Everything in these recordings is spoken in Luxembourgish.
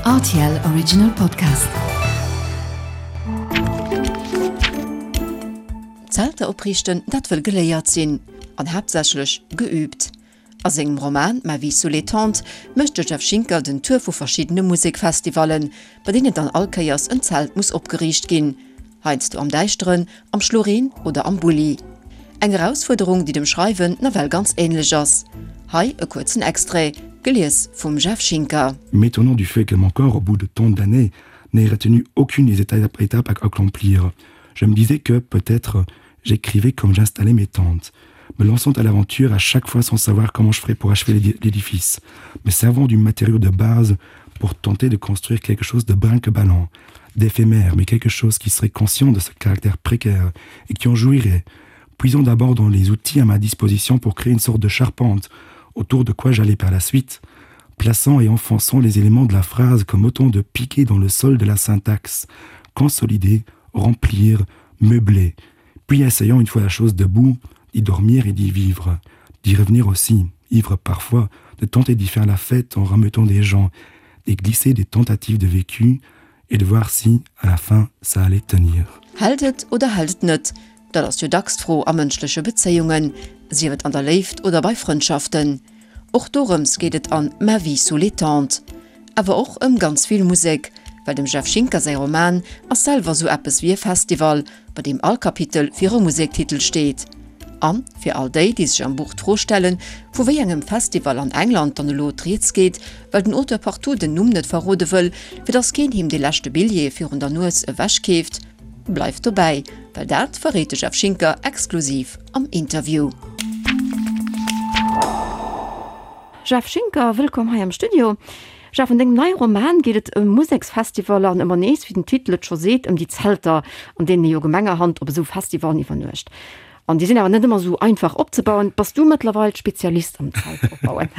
Rtl Original Podcast. Zelter opriichten, dat wëll geléiert sinn an haaptsächlech geüübt. A sengem Roman Ma vie sous les tentes mécht de Jeff Schinker den Tour vu verschiddene Musekfestivallen, bei deenen dann all Kéiers en Zelt muss opgeriicht ginn. Heiansdo am Däischteren, am Schloreen oder am Bulli. Eng Erausfuerderung, déi dem Schreiwen nawell ganz änlech ass. Hei e kuerzen Extrait, gelies vum Jeff Schinker. M'étonnant du fait que mon corps, au bout de tant d'années, n'ait retenu aucune des étapes à accomplir. Je me disais que, peut-être, j'écrivais comme j'installais mes tentes, me lançant à l'aventure à chaque fois sans savoir comment je ferais pour achever l'édifice, me servant du matériau de base pour tenter de construire quelque chose de brinque-ballant, d'éphémère, mais quelque chose qui serait conscient de ce caractère précaire et qui en jouirait, puisant d'abord dans les outils à ma disposition pour créer une sorte de charpente autour de quoi j'allais par la suite, plaçant et enfonçant les éléments de la phrase comme autant de piquets dans le sol de la syntaxe, consolider, remplir, meubler, puis essayant une fois la chose debout, d'y dormir et d'y vivre, d'y revenir aussi, ivre parfois, de tenter d'y faire la fête en rameutant des gens, d'y glisser des tentatives de vécu et de voir si, à la fin, ça allait tenir. Hält et oder hält et net? Dat ass jo dacks d'Fro a mënschleche Bezéiungen, sief et an der Léift oder bei Frëndschaften. Och dorëms geet et an Ma vie sous les tentes. Awer och ëm ganz vill Musek, well dem Jeff Schinker säi Roman ass selwer sou eppes wéi e Festival, bei deem all Kapitel fir e Musektitel steet. An fir all déi, déi sech am Buch d'Fro stellen, vu wéi engem Festival an England dann elo d'Rieds geet, well den Auteur partout den Numm net verrode wëll, fir dass keen him dee leschte Billjee virun der Nues ewechkeeft, bleift dobäi, well dat verréit de Jeff Schinker exklusiv am Interview. Jeff Schinker, wëllkomm hei am Studio. Jeff, an dengem neie Roman geet et ëm Museksfestivaller an ëmmer nees, wéi den Titel et scho seet, ëm déi Zelter, an deenen ee jo gemengerhand op esou Festivallen iwwernuecht. An déi sinn awer net ëmmer esou einfach opzebauen. Bass du mëttlerweil Spezialist am Zelt opbauen?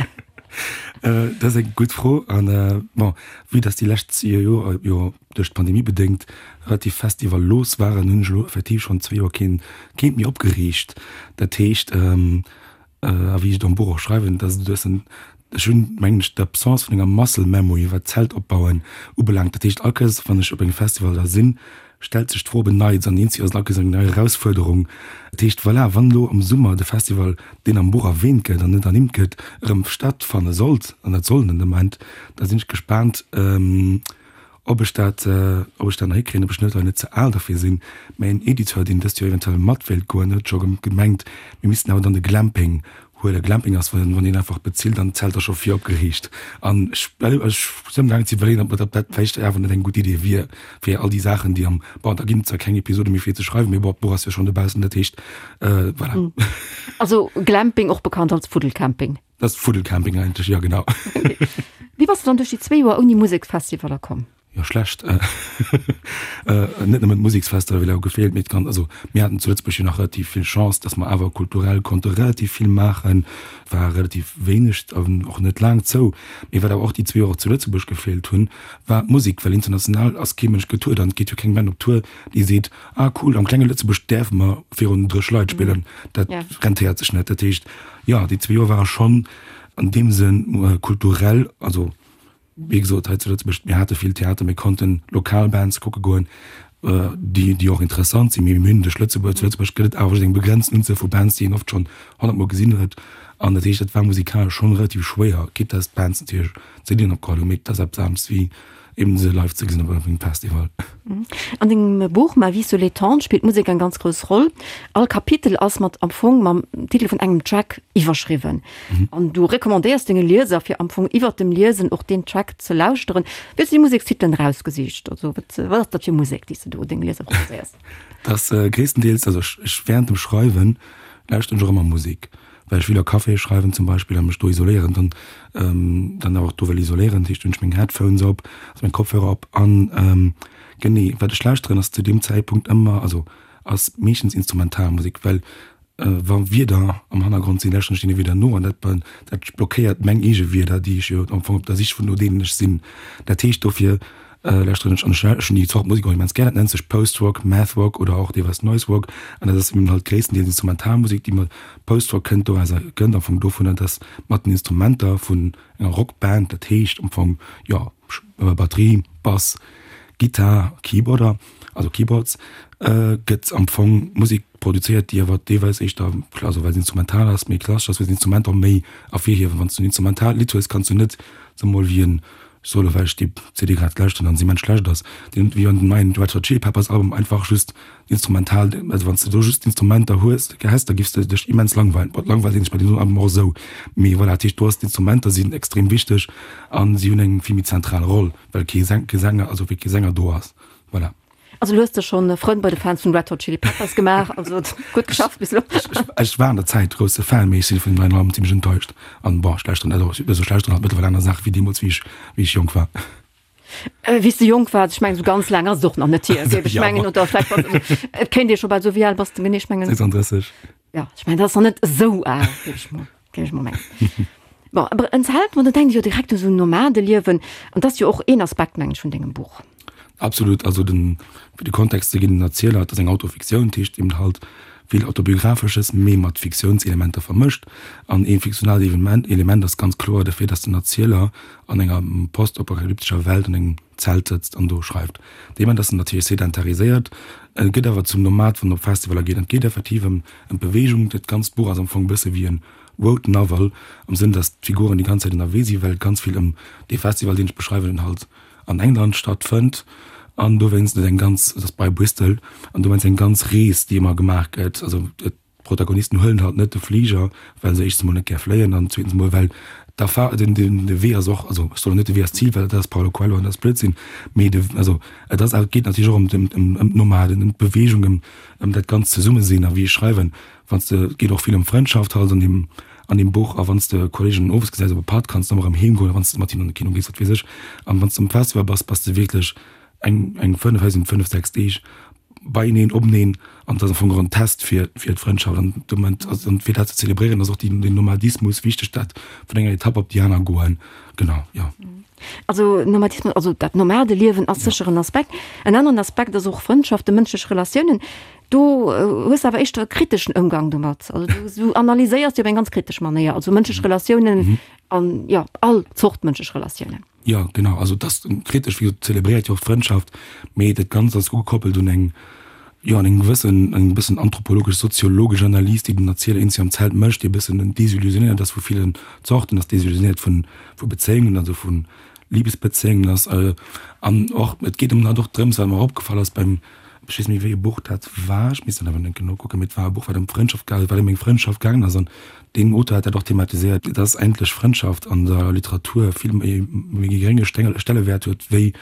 Dat ass eng gutt Fro. An bon, vue dass déi lescht Joer jo duerch d'Pandemie bedéngt relativ festivallos waren, hunn ech elo effektiv schonn zwee Joer keen, keent méi opgeriicht. Dat heescht, A wéi ech et am Buch och schreiwen, dass et e bëssen, ech hunn, mengen ech, d'Absence vun enger Muscle Memory, wat Zeltopbauen ubelaangt. Dat heescht, all Kéiers, wann ech op engem Festival da sinn, stellt sech d'Fro op en Neits an eenzeg ass et all Kéiers eng nei Erausfuerderung. Dat heescht, voilà, wann elo am Summer de Festival, deen am Buch erwähnt gëtt an net ernimmt gëtt, erëm stattfanne sollt, an dat soll en den Ament, da sinn ech gespaant, Ob ech dat, ob ech dat nach hikréien, ob ech net oder net ze al derfir sinn. Mä een Editeur, deen dëst Joer eventuell mat wéilt goen, huet scho gemengt, mir missten awer dann de Glamping huelen. Glamping ass, wann een einfach bezilt an d'Zelter scho vir opgeriicht. An ech, ech sinn amgaangen ze iwwerleeën, ob dat vläicht awer net eng gutt Idee wier, fir all déi Saachen, déi am, bon, da ginn et zwar keng Episode méi fir ze schreiwen, mee bon, d'Buch ass jo schonn dobaussen, dat heescht, voilà. Also Glamping, och bekannt als Fuddelcamping. Dat ass Fuddelcamping eigentlech, jo genau. Wéi bass de dann duerch déi zwéi Joer ouni Museksfestivaller komm? Jo, schlecht. Net nëmmen d'Museksfestivaler hu gefeelt, mee d'ganz, also mir haten zu Lëtzebuerg jo nach relativ vill Chance, datt mer awer kulturell konnte relativ vill maachen. War relativ wéineg an och net laang zou. Mee wat awer och déi zwee Joer zu Lëtzebuerg gefeelt hunn, war d'Musek, well international ass kee Mënsch getourt an et geet jo keng Band op Tour, déi seet, ah cool, am klenge Lëtzebuerg däerfe mer virun 30 Leit spillen. Dat rentéiert sech net. Dat heescht, Jo, déi zwee Joer ware schonn an deem Sënn kulturell, also wéi gesot hei zu Lëtzebuerg, mir hate vill Theater, mir konnten lokal Bands kucke goen, déi déi och interessant sinn, mee mir hunn duerch Lëtzebuerg, zu Lëtzebuerg gëtt et awer just eng begrenzten Unzuel vu Bands, déi een oft schonn honnertmol gesinn huet an dat heescht, dat war musikalesch schonn relativ schwéier, quitte dass d'Bands natierlech CDen opgeholl hunn, mee et ass eppes anescht wéi eben se live ze gesinn op engem Festival. An dengem Buch Ma vie sous les tentes spillt d'Musek eng ganz grouss Roll. All Kapitel ass mat am Fong mam Titel vun engem Track iwwerschriwwen. An du recommandéiers denge Lieser fir am Fong iwwert dem Liesen och deen Track ze lauschteren. Wéi hues du déi Musekstitelen erausgesicht? Also wat wat ass dat fir Musek, déi s de do denge Lieser proposéiers? Dat ass gréisstendeels, also ech ech während dem Schreiwen lauschteren ech och ëmmer Musek. Well ech will a Caféë schreiwen zum Beispill a mech do isoléieren, dann dann awer och do wëll isoléieren, dat heescht hunn ech meng Headphones op, also meng Kopfhörer op an genee wat ech lauschteren ass zu deem Zäitpunkt ëmmer, also ass meeschtens Instrumentalmusek, well wa Wierder am Hannergrond sinn, lauschteren ech deene Wierder no an dat dat blockéiert meng eege Wierder, déi ech jo am Fong op der Sich vun no deenen ech sinn. Dat heescht dofir Lauschteren ech an ech hunn déi Zort Musek och immens gär. Dat nennt sech Post-Rock, Math-Rock oder och deelweis Noise-Rock an dat ass eben halt gréisstendeels Instrumentalmusek, déi mat Post-Rock kënnt doraus kënnt am Fong dovunner, dass mat den Instrumenter vun enger Rockband, dat heescht am Fong jo. Batterie, Bass, Gittar, Keyboarder, also Keyboards, gëtt am Fong Musek produzéiert, déi awer deelweis éischter, also well se instrumental ass, méi klassesch ass, well se Instrumenter méi ervirhiewen. Wann s du en instrumentaalt Lidd hues, kanns du net soe mol wéi en Solo, well ech déi CD grad lauschteren an se immens schlecht ass, deen wéi an den neien Red Hot Chili Peppers Album einfach just instrumental, also wann s de do just d'Instrumenter hues, häss, da giffs de dech immens langweilen. Bon, langweilt een sech bei deem Album och esou, mee voilà, dat heescht do ass d'Instrumenter sinn extrem wichteg an si hunn eng vill méi zentral Roll, well kee Sänger, also wéi kee Sänger do ass, voilà. Also du hues der schonn Frënn bei de Fans vun Red Hot Chili Peppers gemaach, also gutt geschafft bis elo. Ech war an der Zäit grousse Fan, mee ech si vun dem neien Album zimmlech enttäuscht an bon, ech lauschteren, also ech lauschteren halt mëttlerweil aner Saache wéi deemools wéi ech wéi ech jonk war. Wéi s de jonk waars, ech mengen esou ganz laang ass et och nach net hier, géif ech mengen, oder vläicht bass et kéint ee scho bal soen, wéi al bass de genee? Ech mengen. 36. Ja, ech mengen dat ass nach net esou al, géif ech mol géif ech mol mengen. Bon, awer en Zelt, ma do denkt ee jo direkt u sou Nomadeliewen an dat ass jo och een Aspekt, mengen ech, vun dengem Buch. Absolut, also den, fir de Kontext ze ginn, den Erzieler, et ass eng Autofiktioun, dat heescht eben halt vill Autobiografesches, mee mat Fiktiounselementer vermëscht. An ee fiktionaalt Evenement, Element ass ganz kloer de Fait, dass den Erzieler an enger postapokalyptescher Welt an engem Zelt sëtzt an do schreift. Dee Moment ass en natierlech sedentariséiert, e gëtt awer zum Nomad, wann en op Festivaler geet. An et geet effektiv ëm ëm d'Beweegung. Dat ganzt Buch ass am Fong e bësse wéi e Road Novel, am Sënn, dass d'Figuren déi ganz Zäit ënnerwee sinn, well et ganz vill ëm dee Festival, deen ech beschreiwen, halt an England stattfënnt an dowéinst et eng ganz, et ass bei Bristol, an dowéinst eng ganz Rees, déi ëmmer gemaach gëtt. Also d'Protagonisten huelen halt net de Fliger, well se éischtens emol net gär fléien an zweetens emol well d'Erfa-, den, den, de Wee ass och, also ech soen net de Wee ass d'Zil, well dat ass Paulo Coelho an dat ass Blödsinn, mee de, also et ass, et geet natierlech och ëm, ëm, ëm d'Nomaden, ëm d'Beweegung, ëm, ëm dat ganzt Zesummesinn a wéi ech schreiwen, Wann s de, et geet och vill ëm Frëndschaft halt an deem, an deem Buch, a wann s de Kolleegen owes gesäis op e Patt, kanns de ëmmer erëm heem goen, a wann s de mat hinnen an de Kino gees, wat weess ech. An wann s de um Festival bass, bass de wierklech eng, eng 5, hei sinn 5, 6 Deeg beieneen, openeen, an et ass am Fong och en Test fir, fir d'Frëndschaft. An de Moment, also an fir dat ze zelebréieren, ass och déi, den Nomadismus wichteg, dat vun enger Etapp op déi aner goen. Genau, jo. Also Nomadismus, also dat Nomadeliewen ass sécher en Aspekt. En aneren Aspekt ass och Frëndschaften, mënschlech Relatiounen. Do hues de awer éischter e kriteschen Ëmgang domat. Also du, du analyséiers déi op eng ganz kritesch Manéier, also mënschlech Relatiounen an jo, all Zort mënschlech Relatiounen. Jo, genau. Also et ass kritesch, wéi gesot, zelebréiert jo och d'Frëndschaft, mee dat Ganzt ass ugekoppelt un eng, jo, an eng gewëssen, eng bëssen anthropologesch, soziologesch Analys, déi den Erzieler eenzel am Zelt mécht, déi e bëssen desillusionéiert ass vu villen Zorten, ass desillusionéiert vun, vu Bezéiungen, also vu Libesbezéiungen ass an och, et geet ëm halt och drëms, wat mer och opgefall ass beim, Ech weess net méi wéi e Buch dat war, ech misst dat awer enke nokucken, mee et war e Buch wat ëm Frëndschaft gaangen, wat ëm eng Frëndschaft gaangen ass an deen Auteur hat dat och thematiséiert, dass eigentlech Frëndschaft an der Literatur vill méi méi gerénge Stellewäert huet wéi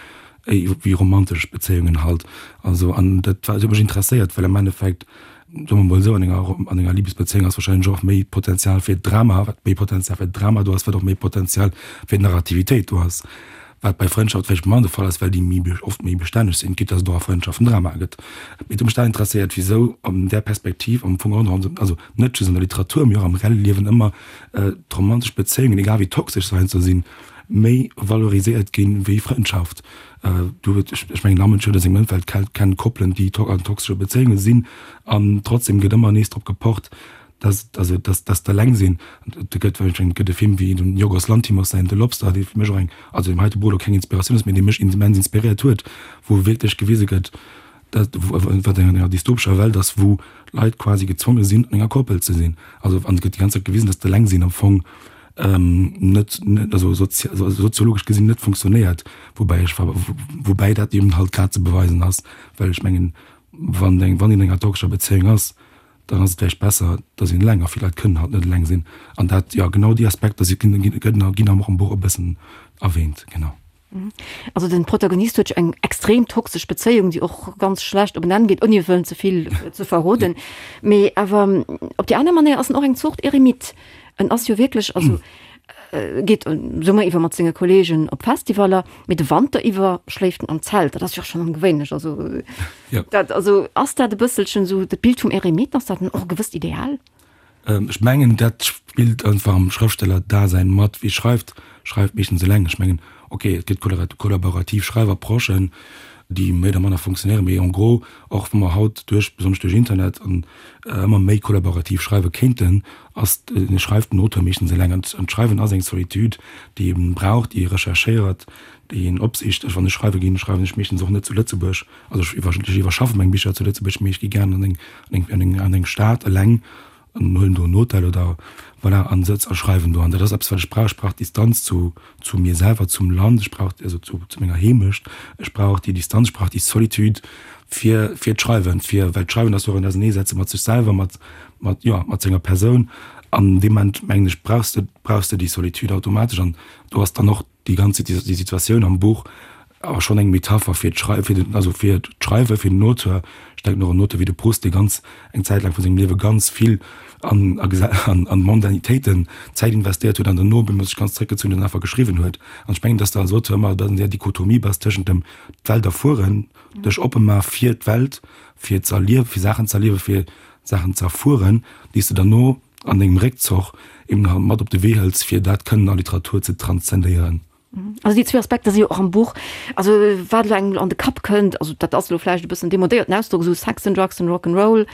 wéi romantesch Bezéiungen halt. Also an dat war, dat huet mech interesséiert, well am Endeffekt, soe mer mol esou, an enger an enger Libesbezéiung ass wahrscheinlech och méi Potenzial fir Drama, wat méi Potenzial fir Drama do ass, wat och méi Potenzial fir Narrativitéit do ass. Wat bei Frëndschaft vläicht manner de Fall ass, well déi méi oft méi bestänneg sinn, quitte dass et och a Frëndschaften Drama gëtt. Mee et huet mech dat interesséiert, wisou an där Perspektiv am Fong och nach, also net just an der Literatur, mee och am reelle Liewen ëmmer d'romantesch Bezéiungen, egal wéi toxesch se heiansdo sinn, méi valoriséiert ginn wéi Frëndschaft. Do huet, ech mengen, all Mënsch huet a sengem Ëmfeld kennt Koppelen, déi an toxesche Bezéiunge sinn an trotzdem gëtt ëmmer nees drop gepocht, dass, also dass, dass d'Eleng sinn, et gëtt, ech mengen, et gëtt e Film wéi dem Yorgos Lanthimos säin The Lobster, dee fir mech och eng, also deem heite Buch elo keng Inspiratioun ass, mee dee mech immens inspiréiert huet, wou wierklech gewise gëtt, dat, wat an enger dystopescher Welt ass, wou Leit quasi gezwonge sinn, an enger Koppel ze sinn. Also an et gëtt déi ganz Zäit gewisen, dass d'Eleng sinn am Fong net, net, also soziologesch gesinn net funktionéiert, woubäi ech, woubäi dat eben halt grad ze beweisen ass, well ech mengen, wann eng, wann een an enger toxescher Bezéiung ass, dann ass et vläicht besser, dass een eleng, a vill Leit kënnen halt net eleng sinn. An dat, jo, genau déi Aspekter si ginn, ginn, ginn am och am Buch e bëssen erwähnt, genau. Also den Protagonist huet jo eng extrem toxesch Bezéiung, déi och ganz schlecht op en Enn geet, ouni wëllen ze vill ze verroden. Mee awer op déi aner Manéier ass en och eng Zort Eremit. En ass jo wierklech, also geet Summer iwwer mat senge Kolleegen op Festivaller, mee de Wanter iwwer schléift en am Zelt. Dat ass jo och schonn ongewéinlech. Also Ja. dat, also ass dat e bësselchen esou dat Bild vum Eremit, ass dat och e gewësst Ideal? Ech mengen, dat spillt einfach am Schrëftsteller-Dasein mat. Wie schreift, schreift meeschtens eleng. Ech mengen, okay, et gëtt kollaborativ Schreifapprochen. déi méi oder manner funktionéieren, mee en gros, och wa mer haut duerch, besonnesch duerch Internet an ëmmer méi kollaborativ schreiwe kéinten, ass, schreift den Auteur meeschtens eleng. An d'Schreiwen ass eng Solitude, déi ee brauch, déi ee recherchéiert, déi een opsicht. Ech, wann ech schreiwe ginn, schreiwen ech meeschtens och net zu Lëtzebuerg. Also ech iwwer, ech iwwerschaffe meng Bicher zu Lëtzebuerg, mee ech gi gären an eng, an eng, an eng Stad eleng an huelen do en Hotel oder voilà an sëtz a schreiwen do. An dat ass eppes, wat ech brauch. Ech brauch d'Distanz zu, zu mir selwer, zum Land, ech brauch, also zu, zu menger Heemecht. Ech brauch déi Distanz, ech brauch déi Solitude fir, fir d'Schreiwen, fir, well d'Schreiwen ass jo och en Auserneesetze mat sech selwer, mat, mat, jo, mat senger Persoun. An deem Moment, mengen ech, brauchs de, brauchs de déi Solitude automatesch. An do ass dann och déi ganz déi Situatioun am Buch awer schonn eng Metapher fir d'Schrei fir den also fir d'Schreiwe fir den Auteur. Ech denken och un Auteur wéi de Proust, dee ganz eng Zäit laang vu sengem Liewe ganz vill an a an an Mondanitéiten Zäit investéiert huet an dono op eemol sech ganz zréckgezunn huet an einfach geschriwwen huet. An ech mengen, datt s de als Auteur ëmmer an där Dichotomie bass tëschent dem d'Welt erfueren, dech oppe ma fir d'Welt, fir z'erliewen, fir Saachen z'erliewen, fir Saachen z'erfueren, déi s de derno an dengem Réckzoch eben halt mat op de Wee hëls, fir dat kënnen a Literatur ze transzendéieren. Also déi zwee Aspekter si jo och am Buch. Also wat elo engem an de Kapp kënnt, also dat ass elo vläicht e bëssen demodéierten Ausdrock, esou Sex and Drugs and Rock and Roll,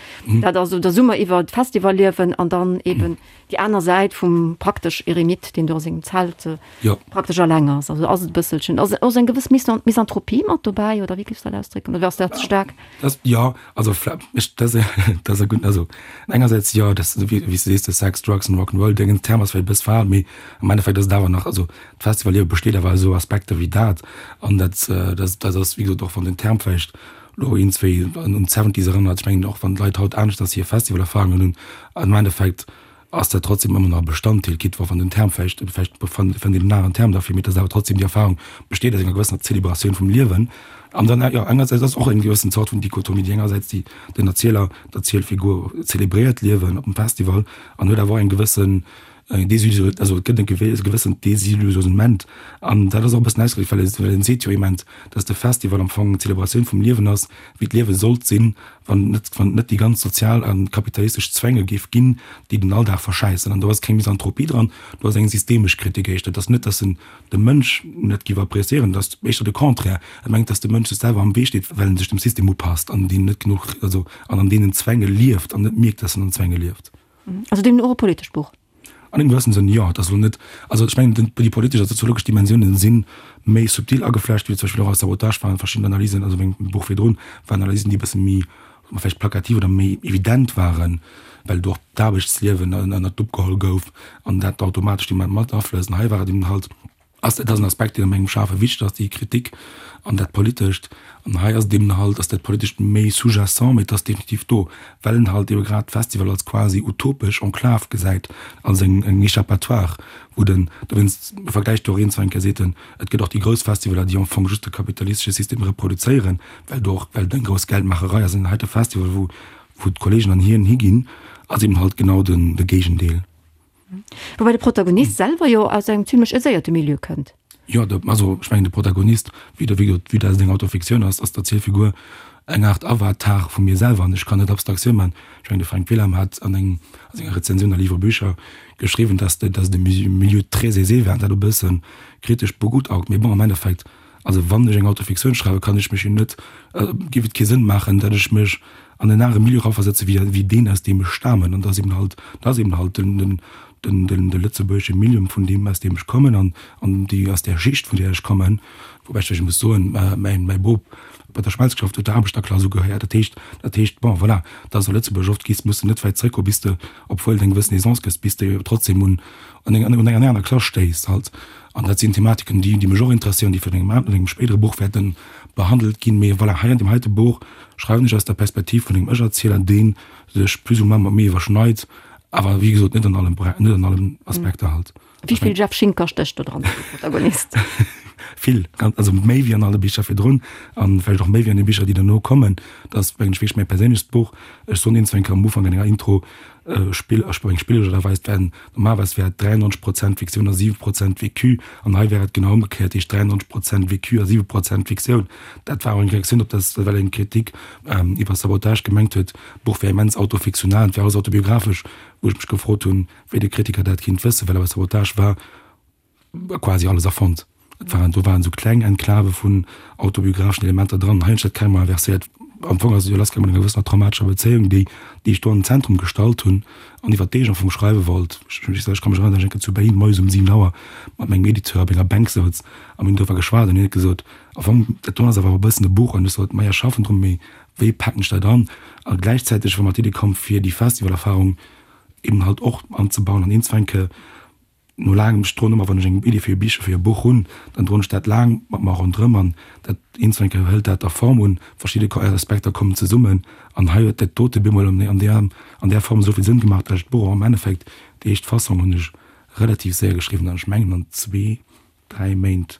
dat ass esou der Summer iwwer d'Festivalliewen an dann eben déi aner Säit vum praktesch Eremit, deen do a sengem Zelt praktesch alleng ass. Also ass et e bësselchen, ass ass eng gewëss Misanthropie mat dobäi oder wéi géifs de dat ausdrécken oder ass dat ze staark? Dat, jo, also ech, dat ass e gudden, also engersäits jo, dat wéi s de sees, de Sex, Drugs and Rock 'n' Roll, deen Term ass vläicht e bëss verhaalt, mee am Endeffekt ass et awer nach, also d'Festivalliewe besteet awer aus esou Aspekter wéi dat an dat, dat ass wéi gesot, och wann den Term vläicht elo een, zwéi un d'Seventies erënnert, ech mengen och wann d'Leit haut aneschters hir Festivalerfarungen hunn, am Endeffekt ass dat trotzdem ëmmer nach e Bestanddeel, quitte wa wann den Term vläicht, vläicht fënnt een en aneren Term derfir, mee et ass awer trotzdem déi Erfahrung besteet aus enger gewëssener Zelebratioun vum Liewen. An dann, jo, engersäits ass och eng gewëssen Zort vun Dichotomie, déi engersäits déi den Erzieler, d'Erzielfigur zelebréiert d'Liewen op dem Festival an huet awer och eng gewëssen Desillusion, also et gëtt e gewëssent Desillusionnement an dat ass och e bëssen ausgedréckt, well well en seet jo immens, datt de Festival am Fong eng Zelebratioun vum Liewen ass, wéi d'Liewe sollt sinn, wann et net, wann et net déi ganz sozial a kapitalistesch Zwänge géif ginn, déi den Alldag verschäissen. An do ass keng Misanthropie dran, do ass eng systemesch Kritik éischter. Et ass net, datt en de Mënsch net géif appréciéieren, et ass éischter de Contraire, e mengt, datt de Mënsch sech selwer am Wee steet, well en sech dem System upasst an deen net genuch, also an an deenen Zwänge lieft an net mierkt, datt en an Zwänge lieft. Also deemno och e politescht Buch? An engem gewëssene Sënn, jo. Et ass elo net, also ech mengen, déi politesch a soziologesch Dimensiounen si méi subtil ageflecht, wéi zum Beispill och a Sabotage waren verschidden Analysen, also mengem Buch virdrun, waren Analysen, déi e bësse méi, soe mer vläicht plakativ oder méi evident waren, well do och d'Aarbechtsliewen ënnert d'Lupp geholl gouf an dat automatesch déi mat aflësst. An hei war et eben halt, Ass, dat ass en Aspekt, deen a mengem Schafe wichteg ass, déi Kritik an dat Politescht. An hei ass et eben halt, ass dat Politescht méi sous-jacent, mee et ass definitiv do, well en halt ebe grad d'Festival als quasi utopesch Enclave gesäit, als eng, eng Échappatoire, wou den, dowéinst vergläicht do och een zwar eng Kéier, seet en, et gëtt och déi grouss Festivaler, déi am Fong just de kapitalistesche System reproduzéieren, well do och, well et eng grouss Geldmaacherei ass. An hei de Festival, wou, wou d'Kollegen an hien higinn, ass eben halt genau den, de Géigendeel. Woubäi de Protagonist selwer jo aus engem zimlech aiséierte Milieu kënnt. Jo, de, also ech mengen de Protagonist, wéi de, wéi wéi dat eng Autofiktioun ass, ass d'Erzielfigur eng Aart Avatar vu mir selwer an ech kann net Abstraktioun man. Ech mengen de Fränk Wilhelm hat an engem, a senger Rezensioun a Livre Bücher geschriwwen, dass de, dass de Milieu très aisé war an dat e bësse kritesch begutaugt. Mee bon, am Endeffekt, also wann ech eng Autofiktioun schreiwen, kann ech mech jo net, géif et kee Sënn maachen, datt ech mech an en anere Milieu eraversetze wéi wéi deen, aus deem ech stamen. An dat ass eben halt, dat ass eben halt den, den, den, den, de lëtzebuergesche Milieu, vun deem, aus deem ech kommen an, an déi, aus där Schicht, vun där ech kommen. Woubäi ech vläicht muss soen, mäin, mäi Bop bei der Schmelz geschafft huet, der Aarbechterklass ugehéiert. Dat heescht, dat heescht, bon, voilà, dat ass a Lëtzebuerg oft gis, muss de net wäit zréckgoen, bis de, obwuel et eng gewëssen Aisance gëtt, bis de trotzdem un, un eng, un eng aner Klass stéiss halt. An dat sinn Thematiken, déi, déi mech och interesséieren, déi vun engem an engem spéidere Buch wäerte behandelt ginn. Mee voilà, hei an deem heite Buch schreiwen ech aus der Perspektiv vun engem Ech-Erzieler, dee sech plus ou moins mat mir iwwerschneit, awer wéi gesot net an allen, net an allen Aspekter halt. Wéi vill Jeff Schinker stécht do dran, de Protagonist? Vill, ganz, also méi wéi an alle Bicher virdrun an vläicht och méi wéi an de Bicher, déi derno kommen. Dat ass, mengen ech, wierklech mäi perséinlechst Buch. Ech soen een, zwou eng Kéier am Ufank an enger Intro, Spill, ech eng spillesch oder weis wären normalerweis wär et 93 Prozent Fiktioun a 7 Prozent Vécu an hei wär et genau ëmgekéiert, heescht 93 Prozent Vécu a 7 Prozent Fiktioun. Dat war och eng Reaktioun op dat, well eng Kritik iwwer Sabotage gemengt huet, d'Buch wär immens autofiktional an et wär alles autobiographesch, wou ech mech gefrot hunn, wéi de Kritiker dat kinnt wëssen, well awer Sabotage war quasi alles erfonnt. Et waren, do waren esou kleng Enklave vun autobiographeschen Elementer dran. Hei hunn ech dat carrément inverséiert. Am Fong ass et jo lassgaangen mat enger gewëssener traumatescher Bezéiung, déi, déi ech do an den Zentrum gestallt hunn an iwwer déi ech am Fong schreiwe wollt. Ech, ech ka mech erënneren, datt ech eng Kéier zu Berlin moies um 7 Auer mat mengem Editeur op enger Bänk souz a mir hunn doriwwer geschwat an hien huet gesot, Am Fong, dat do ass awer e bëssen e Buch. An ech sot, Maja, schaffen drun, mee wéi paken ech dat an? A gläichzäiteg war mer d'Iddi komm, fir déi Festivalerfarung eben halt och anzebauen an eenzewenke no laangem, ech droen ëmmer, wann ech eng Iddi fir e Bich, fir e Buch hunn, dann droen ech dat laang mat mer ronderëm an dat eenzewenke hëlt dat da Form un, verschidde Aspekter kommen zesummen an hei huet dat dote bemol an där, an där Form esou vill Sënn gemaach, datt ech d'Buch och am Endeffekt, déi éischt Fassong hunn ech relativ séier geschriwwen an ech mengen an zwee 3 Méint,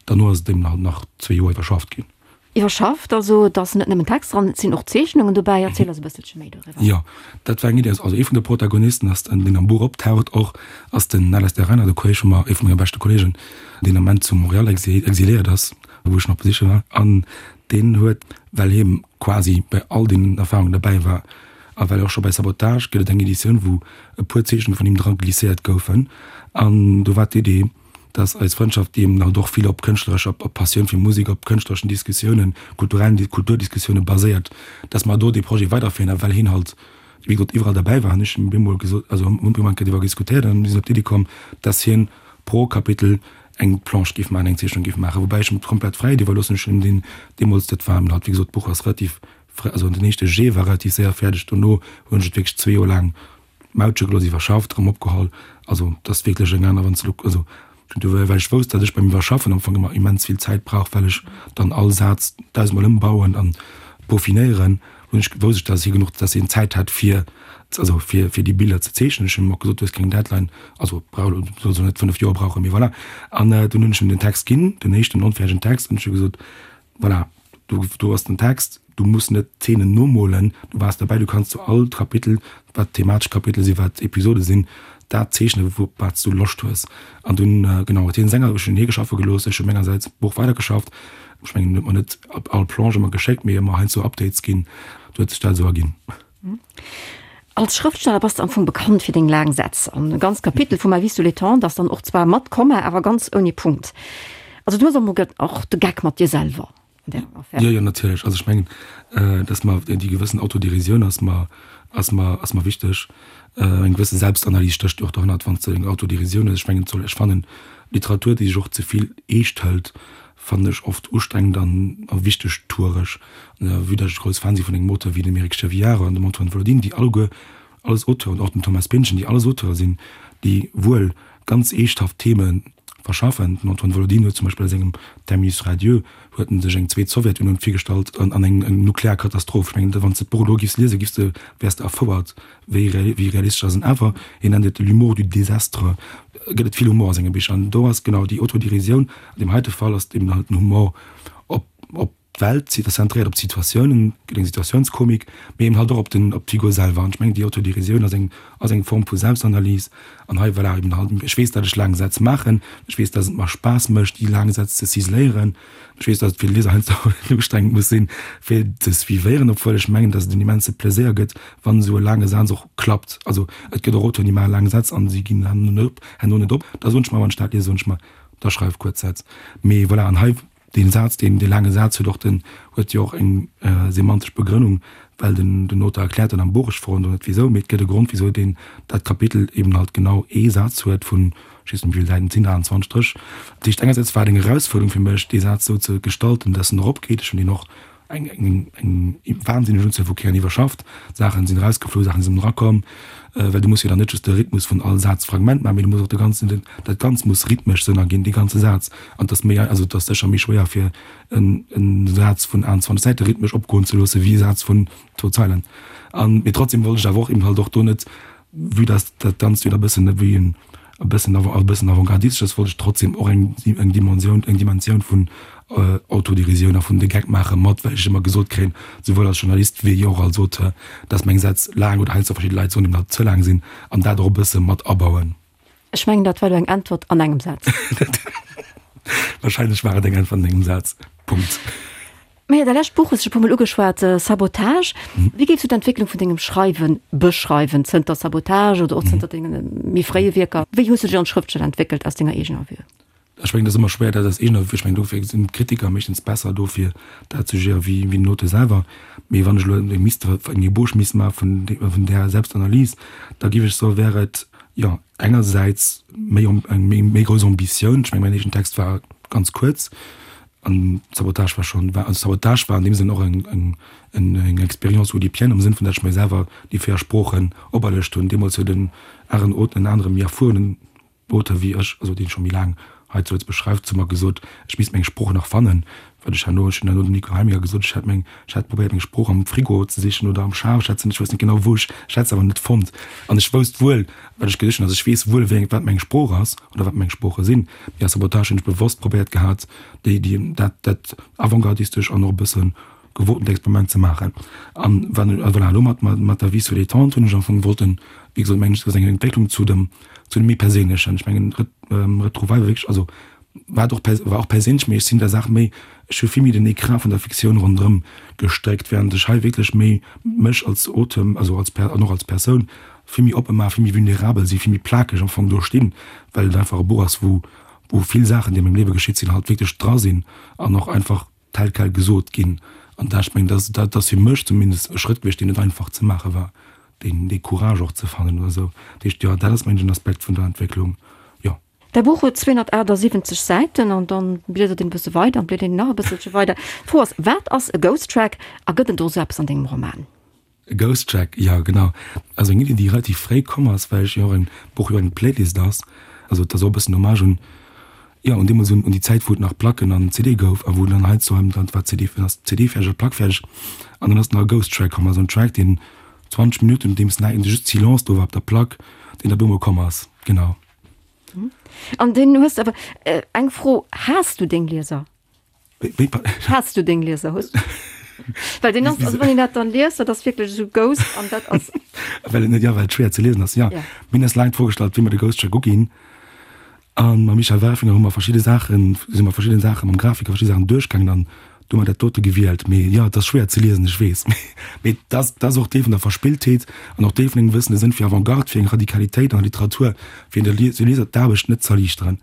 derno ass et eben halt nach zwee Joer iwwerschafft ginn. Iwwerschafft, also et ass net nëmmen Text dran, et sinn och Zeechnungen dobäi. Erziel eis e bësselche méi doriwwer. Jo, dat war eng Iddi. Also ee vun de Protagonisten ass, deen am Buch optaucht och, ass den Alastair Reinhard, e Kolleeg vu mer, ee vu menge beschte Kolleegen, deen am Ament zu Montréal exiléiert ass, wou ech nach besiche war. An deen huet, well hie quasi bei all deenen Erfarungen derbäi war a well och scho bei Sabotage gëtt et eng Editioun, wou e puer Zeechnunge vun him dra glisséiert goufen, an do war d'Idee, dass eis Frëndschaft, déi eben halt och vill op kënschtlerescher, op Passioun fir Musek, op kënschtlereschen Diskussiounen, kulturellen, Kulturdiskussioune baséiert, dass mer do dee Projet weiderféieren. A well hien halt, wéi gesot, iwwerall derbäi war, hunn ech him bemol gesot, also hunn mir eng Kéier driwwer diskutéiert an mir sinn op d'Iddi komm, dass hien pro Kapitel eng Planche géif maachen, eng Zeechnung géif maachen, woubäi ech him d'komplett Fräiheet iwwerloossen. Ech hunn him deen deemools, dat war eben halt, wéi gesot, d'Buch ass relativ fréi, also den éischte Jet war relativ séier fäerdeg, dono hunn ech et wierklech zwee Joer laang Mautche gelooss, iwwerschafft, erëm opgeholl. Also et ass wierklech eng aner, wann s de elo, also du, well ech wousst, datt ech beim Iwwerschaffen am Fong ëmmer immens vill Zäit brauch, well ech dann all Saz dausendmol ëmbauen an peaufinéieren, hunn ech, wousst ech, datt hie genuch, datt hien Zäit hat fir, also fir, fir déi Biller ze zeechnen. Ech hunn him och gesot, du hues keng Deadline, also brauch elo, du solls elo net 5 Joer brauchen, mee voilà. An dunn hunn ech him den Text ginn, den éischten onfäerdegen Text, an ech hu gesot, voilà, do, do ass den Text, du muss net d'Zeenen nomolen, du waars derbäi, du kanns zu all Kapitel, wat thematesch Kapitel sinn, wat Episode sinn, dat zeechnen, wou, wat s du Loscht hues. An dunn, genau, huet hien senger, ech hunn hie geschaffe gelooss, ech hu mengersäits d'Buch weidergeschafft. Ech mengen, hien huet mer net all Planche ëmmer geschéckt, mee ëmmer heiansdo Updates ginn. Du huet sech dat esou erginn. Als Schrëftsteller bass de am Fong bekannt fir deng laang Sätz. An e ganzt Kapitel vu Ma vie sous les tentes ass dann och zwar mat Komma, awer ganz ouni Punkt. Also du hues am Fong och de Geck mat dir selwer an där Affär. Jo, jo, natierlech. Also ech mengen, dass mer déi gewëssen Autoderisioun ass mer, ass mer, ass mer wichteg. Eng gewësse Selbstanalys stécht jo och dohannert, wann s de eng Autoderisioun hues. Ech mengen, et soll, ech fannen, Literatur, déi sech och ze vill eescht hëlt, fannen ech oft ustrengend an a wichtegtueresch. Vue datt ech grouss Fan si vun engem Auteur wéi dem Eric Chevillard an dem Antoine Volodine, déi alleguer alles Auteuren, och dem Thomas Pynchon, déi alles Auteure sinn, déi wuel ganz eeschthaft Theme verschaffen. Den Antoine Volodine huet zum Beispill a sengem Terminus radieux huet en sech eng zweet Sowjetunioun virgestallt an an eng eng nuklear Katastroph. Ech mengen, wann s de d'Buch elo giffs liesen, giffs de, wäers de erfouert, wéi wéi realistesch ass en. Awer hien nennt et l'humour du désastre, gëtt et vill Humor a senge Bicher. An do ass genau déi Autodérisioun, an deem heite Fall ass et eben halt den Humor op op d'Welt, zentréiert op d'Situatiounen, gëtt eng Situatiounskomik, mee eben halt och op den op d'Figur selwer. An ech mengen, déi Autodérisioun ass eng ass eng Form vu Selbstanalys. An hei, voilà, eben halt, ech weess, datt ech laang Sätz maachen, ech weess, datt et mer Spaass mécht, déi laang Sätz ze ciseléieren. Ech weess, datt et fir de Lieser heiansdo ustrengend muss sinn, fir ze suivéieren, obwuel ech mengen, datt et en immense Pleséier gëtt, wann esou e laange Saz och klappt. Also et gëtt och Auteuren, déi maache laang Sätz an si ginn herno net op, herno net op. Da soen ech mer, wann ech dat liesen, soen ech mer, da schreif kuerz Sätz. Mee voilà, an hei dee Saz, deen, dee laange Saz huet och den, huet jo och eng semantesch Begrënnung, well den, den Auteur erkläert dann am Buch, ech froen do net wisou, mee et gëtt e Grond, wisou deen dat Kapitel eben halt genau ee Saz huet vun, ech weess net wéi vill Säiten et sinn, 28 Stréch. Dat heescht, engersäits war et eng Erausfuerderung fir mech, dee Saz esou ze gestalten, dass en eropgeet. Ech hunn deen och eng, eng, eng wahnsinneg Unzuel vu Kéieren iwwerschafft. Saachen sinn erausgeflu, Saachen sinn erakomm, well du muss jo dann net just de Rhythmus vun all Sazfragment maachen, mee du muss och de ganzen, dat Ganzt muss rhythmesch Sënn erginn, dee ganze Saz. An et ass méi, also et ass sécher méi schwéier fir en, en Saz vun 21 Säite rhythmesch opgoen ze loosse wéi e Saz vun zwou Zeilen. An, mee trotzdem wollt ech awer och eben halt och do net, Vue dass dat Ganzt jo da bëssen wéi en e bëssen e bëssen avantgardistesch ass, wollt ech trotzdem och eng eng Dimensioun eng Dimensioun vun Autoderisioun a vun de Geck maache mat, well ech ëmmer gesot kréien, souwuel als Journalist wéi och als Auteur, dass meng Sätz laang oder heiansdo verschidde Leit soen, eben halt ze laang sinn an dat och e bësse mat abauen. Ech mengen, dat war elo eng Äntwert an engem Saz. Wahrscheinlech war et eng Äntwert an engem Saz. Punkt. Maja, däi lescht Buch hues de scho e puer Mol ugeschwat, Sabotage. Wéi géifs du d'Entwécklung vun dengem Schreiwe beschreiwen, zënter Sabotage oder och zënter denge méi fréie Wierker? Wéi hues du dech als Schrëftsteller entwéckelt aus denger eegener Vue? Ech mengen, dat ass ëmmer schwéier, dat aus eegener, ech mengen, dofir sinn d'Kritiker meeschtens besser do fir dat ze jugéieren, wéi wéi den Auteur selwer. Mee wann ech elo misst eng Ébauche misst maache vun vun där Selbstanalyse, da géif ech soen, wär et, jo, engersäits méi eng méi méi grouss Ambitioun. Ech mengen, mäin éischten Text war ganz kuerz an Sabotage war schonn, war, also Sabotage war an deem Sënn och eng eng eng Expérience oudipienne am Sënn vun, datt ech mir selwer déi 4 Sproochen operluecht hunn. Deemools huet en aren en anere méi erfuerenen Auteur wéi ech, also deen scho méi laang hei zu Lëtzebuerg schreift, zu mer gesot, ech misst meng Sprooch nach fannen, wat ech herno, ech hunn herno dem Nico Helminger gesot, ech hätt meng, ech hätt probéiert meng Sprooch am Frigo ze sichen oder am Schaf, ech hätt se net, ech wousst net genau wou ech, ech hätt se awer net fonnt an ech wousst wuel wat ech gesicht hunn, also ech weess wuel wéi eng, wat meng Sprooch ass oder wat meng Sprooche sinn, mee a Sabotage hunn ech bewosst probéiert gehat déi, déi, dat, dat avantgardistesch an och e bëssen gewotent Experiment ze maachen. An wann, a voilà, elo mat, mat der Vie sur les tentes hunn ech am Fong wollten, wéi gesot, mengen ech, dat ass eng Entwécklung zu dem, zu dem méi Perséinlechen. Ech mengen, Retrouvailles war wierklech, also war och, war och perséinlech, mee ech sinn der Saach méi, ech hu vill méi den Ecran vun der Fiktioun ronderëm gestréckt, während ech hei wierklech méi mech als Auteur, also als Per, an och als Persoun vill méi oppe maachen, vill méi vulnerabel sinn, vill méi plakeg am Fong do stinn, well et einfach e Buch ass, wou, wou vill Saachen, déi a mengem Liewe geschitt sinn, halt wierklech dra sinn an och einfach tel quel gesot ginn. An dat, ech mengen, dat, dat ass fir mech zumindest e Schrëtt gewiescht, deen net einfach ze maache war, deen, dee Courage och ze fannen oder esou. Dat heescht, jo, dat ass, mengen ech, en Aspekt vun der Entwécklung, jo. Däi Buch huet 278 Säiten an dann bliedert een e bësse weider an bliedert een nach e bësselche weider. D'Fro ass, Wat ass e Ghost Track a gëtt en do esou eppes an dengem Roman? E Ghost Track, jo genau. Also eng Iddi déi relativ fréi komm ass, well ech jo och en Buch jo eng Playlist ass. Also et ass och e bëssen Hommage un, jo un deemools un déi Zäit wou et nach Placken an CD gouf a wou dann heiansdo erëm dann war d'CD ass d'CD fäerdeg oder d'Plack fäerdeg an dann ass nach e Ghost Track komm, also en Track deen 20 Minutten nodeems nach just Silence do war op der Plack, deen da bemol komm ass, genau. An deen hues de awer, eng Fro, Haas du deng Lieser? Haas du deng Lieser hues? Well den ass, also wann een dat dann liest, dat ass wierklech esou Ghost an dat ass. Well et net, ja, well et schwéier ze liesen ass, ja. Ja. Mir hunn eis laang d'Fro gestallt, wéi mer de Ghost Track uginn. An mam Michel Welfringer hu mer verschidde Saachen, si mer verschidde Saache mam Grafiker verschidde Saachen duerchgaangen an du hu mer dat dote gewielt. Mee jo, et ass schwéier ze liesen, ech weess. Mee dat ass, dat ass och Deel vun der Verspilltheet an och Deel vun engem gewëssene Sënn fir Avantgarde, fir eng Radikalitéit an der Literatur, fir de Lieser d'Aarbecht net z'erliichteren.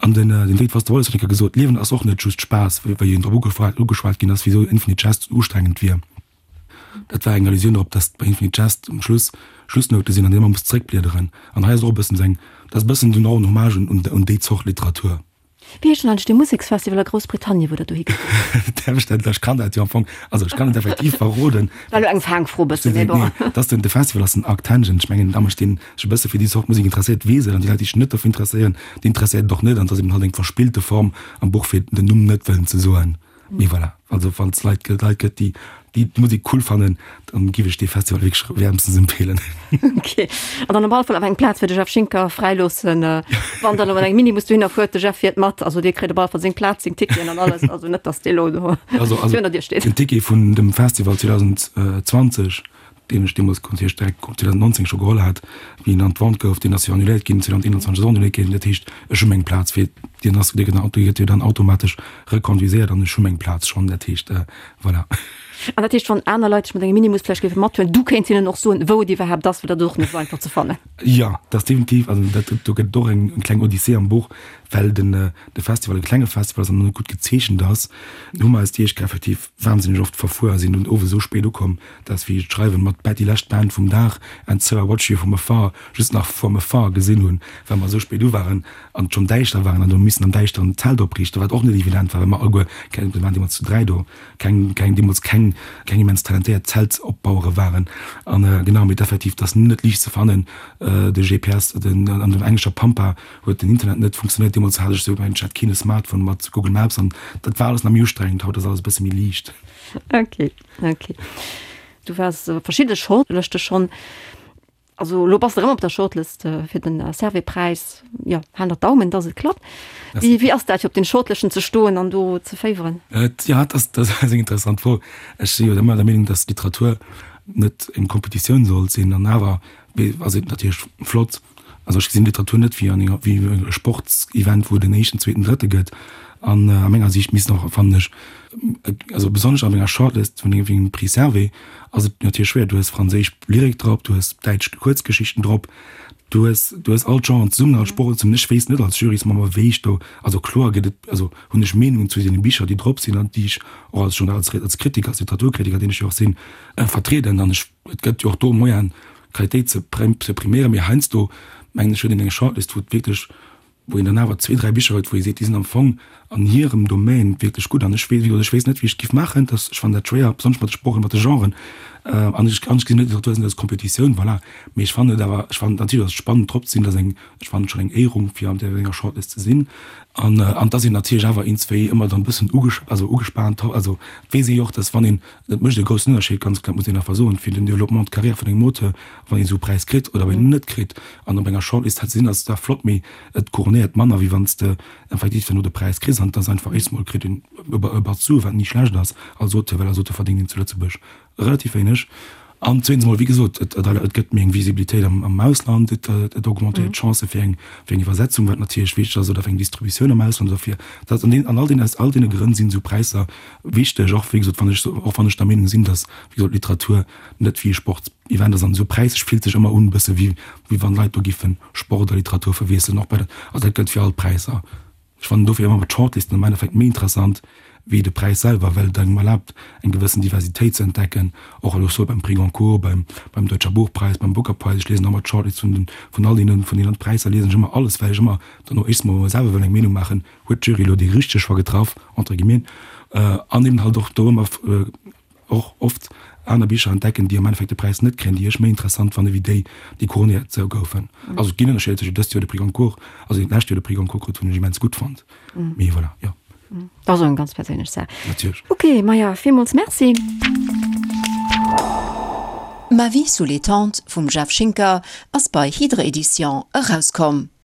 An den David Foster Wallace huet eng Kéier gesot, D'Liewen ass och net just Spaass, wéi en drop ugeschwat ginn ass, wisou Infinite Jest ustrengend wier. Dat war eng Allusioun drop, datt bei Infinite Jest um Schluss Schlussnoute sinn, an déi ee muss zeréckbliederen. An hei ass och e bëssen esou eng, dat ass e bëssen och en Hommage un déi Zort Literatur. Wéi heescht denn eigentlech dee Museksfestival a Groussbritannien, wou der dohi gefuer sidd? Ech kann dat jo am Fong, also ech kann et effektiv verroden. War elo eng Faangfro e bëssen, mee bon. Nee, dat ass den, de Festival ass den Arctangent. Ech mengen, da mécht deen sech e bësse fir déi Zort Musek interesséiert, weess et, an déi Leit, déi sech net dofir interesséieren, déi interesséiert et och net. An et ass eben halt eng verspillte Form am Buch, fir den Numm net wëllen ze soen. Mee voilà, also wann es Leit gëtt, Leit gëtt, déi déi d'Musek cool fannen, dann giff ech dee Festival wierklech wärmstens empfehlen. Ok, an dann op alle Fall awer eng Plaz fir de Jeff Schinker fräiloossen, wann der elo mat engem Minibus dohinner fuert, de Jeff fiert mat, also dee kritt op alle Fall seng Plaz, seng Ticketen an alles, also net dass dee elo do Also also virun der Dier steet. Den Ticket vun dem Festival 2020, deen ech deemools natierlech direkt 2019 scho geholl hat, wéi en an d'Vente gouf, deen ass jo annuléiert ginn, 2021 ass och annuléiert ginn. Dat heescht, ech hu meng Plaz fir, deen ass, dee gëtt jo dann automatesch reconduiséiert an ech hu meng Plaz schonn. Dat heescht, voilà. An dat heescht, wann aner Leit sech mat engem Minibus vläicht géife mathuelen, du kéints hinnen och soen, wou et iwwerhaapt ass, well dat ass och net esou einfach ze fannen. Jo, dat ass definitiv, also dat, do gëtt et och eng kleng Odyssee am Buch, well den, de Festival e klenge Festival ass an net gutt gezeechent ass, hu mer eis déi éischt Kéier effektiv wahnsinneg oft verfuer a sinn dunn owes esou spéit ukomm, dass wéi ech d'Schreiwen mat Bad déi lescht Band vum Dag And So I Watch You From Afar just nach from afar gesinn hunn, well mer esou spéit u waren an et schonn däischter waren an do missen am Däischteren d'Zelt opriichten, wat och net evident war, well mer alleguer keng, mir waren deemools zu 3 do, keng, keng, deemools keng, keng immens talentéiert Zeltopbauere waren an genau, mee effektiv, et ass net liicht ze fannen, de GPS, den, an der englescher Pampa huet den Internet net funktionéiert, deemools hat ech esou, mengen ech hat keen e Smartphone mat Google Maps an dat war alles nach méi ustrengend, haut ass alles e bësse méi liicht. Okay. Okay. Du waars op verschidde Shortlëschte schonn. Also elo bass de erëm op der Shortlist fir den Servais-Präis. Jo, halen der d'Daumen, dass et klappt. Wéi, wéi ass dat fir op den Shortlëschten ze stoen an do ze féiweren? Et, ja, dat ass, dat ass eng interessant Fro. Ech si jo ëmmer der Meenung, dass Literatur net eng Kompetitioun sollt sinn an awer ass et natierlech flott, Also ech gesinn Literatur net wéi an enger, wéi e Sportsevent, wou et en éischten, zweeten, drëtte gëtt. An a menger Siicht missten och, fannen ech, also besonnesch an enger Shortlist vun engem Prix Servais ass et natierlech schwéier, du hues franséisch Lyrik drop, du hues däitsch Kuerzgeschichten drop, du hues, du hues all d'Genren zesummen, all d'Sprochen zesummen. Ech weess net als Jurysmember, wéi ech do, also kloer gëtt et, also hunn ech Meenungen zu deene Bicher, déi drop sinn an déi ech och als Journal, als Kritiker, als Literaturkritiker, deen ech jo och sinn, vertrieden. An ech, et gëtt jo och do Moyen, Qualitéit ze priméieren, mee heiansdo mengen ech huet een eng Shortlist, wou et wierklech, wou een dann awer zwee, dräi Bicher huet, wou ee seet, déi sinn am Fong an hirem Domaine wierklech gutt. An ech weess, wéi gesot, ech weess net, wéi ech et géif maachen. Dat, ech fannen dat schwéier, besonnesch mat de Sproochen, mat de Genren. An ech, an ech gesinn net Literatur als Kompetitioun, voilà. Mee ech fannen et awer, ech fannen natierlech ass et spannend drop ze sinn, dat ass eng, ech fannen et schonn eng Éierung, fir an där enger Shortlist ze sinn. An, an et ass een natierlech awer iergendswéi ëmmer dann e bëssen uges, also ugespaant, also et weess ee jo och, dass wann een, Et mécht e groussen Ënnerscheed, ganz kloer, muss een einfach soen, fir den Développement de carrière vun engem Auteur, wann een esou e Präis kritt oder wann een en net kritt. An op enger Shortlist ze sinn, ass zwar flott, mee et couronnéiert manner, wéi wann s de effektiv duerno de Präis kriss. An et ass einfach, éischts mol kritt een e Batz Sue, wat ni schlecht ass als Auteur, well als Auteur verdéngt een zu Lëtzebuerg relativ wéineg. An zweetens mol, wéi gesot, et gëtt méi eng Visibilitéit am Ausland, et augmentéiert d'Chancë fir eng Iwwersetzung, wat natierlech wichteg ass, oder fir eng Distributioun am Ausland oder fir dat. An all deenen, aus all deene Grënn sinn esou Präisser wichteg, och wéi gesot, wann ech, och wann ech der Meenung sinn, datt, wéi gesot, Literatur net wéi e Sportsevent ass an esou Präisser fillt sech ëmmer un e bësse wéi wéi wann Leit do giffen Sport a Literatur verwiesselen, och bei der, also dat gëllt fir all d'Präisser. Ech fannen dofir ëmmer d'Shortlisten am Endeffekt méi interessant wéi de Präis selwer, well et engem erlaabt eng gewëssen Diversitéit ze entdecken, och elo soit beim Prix Goncourt, beim beim Deutscher Buchpreis, beim Booker Prize. Ech liesen ëmmer d'Shortlist vun den vun all deenen vun deenen Präisser liesen ech ëmmer alles, well ech ëmmer dann och éischts mol selwer wëll eng Meenung maachen, huet d'Jury elo déi richteg Choix getraff, entre guillemets, an eben halt och do ëmmer och oft aner Bicher entdecken, déi am Endeffekt de Präis net kréien, déi ech méi interessant fanne wéi déi, déi couronnéiert goufen. Also et ginn Ënnerscheeder tëschent dëst Joer de Prix Goncourt, also deen d'lescht Joer de Prix Goncourt krut, hunn ech immens gutt fonnt. Mee voilà, jo. Dat ass och eng ganz perséinlech Saach. Natierlech. Ok, Maja, villmools Merci. Ma vie sous les tentes vum Jeff Schinker ass bei Hydre Editions erauskomm.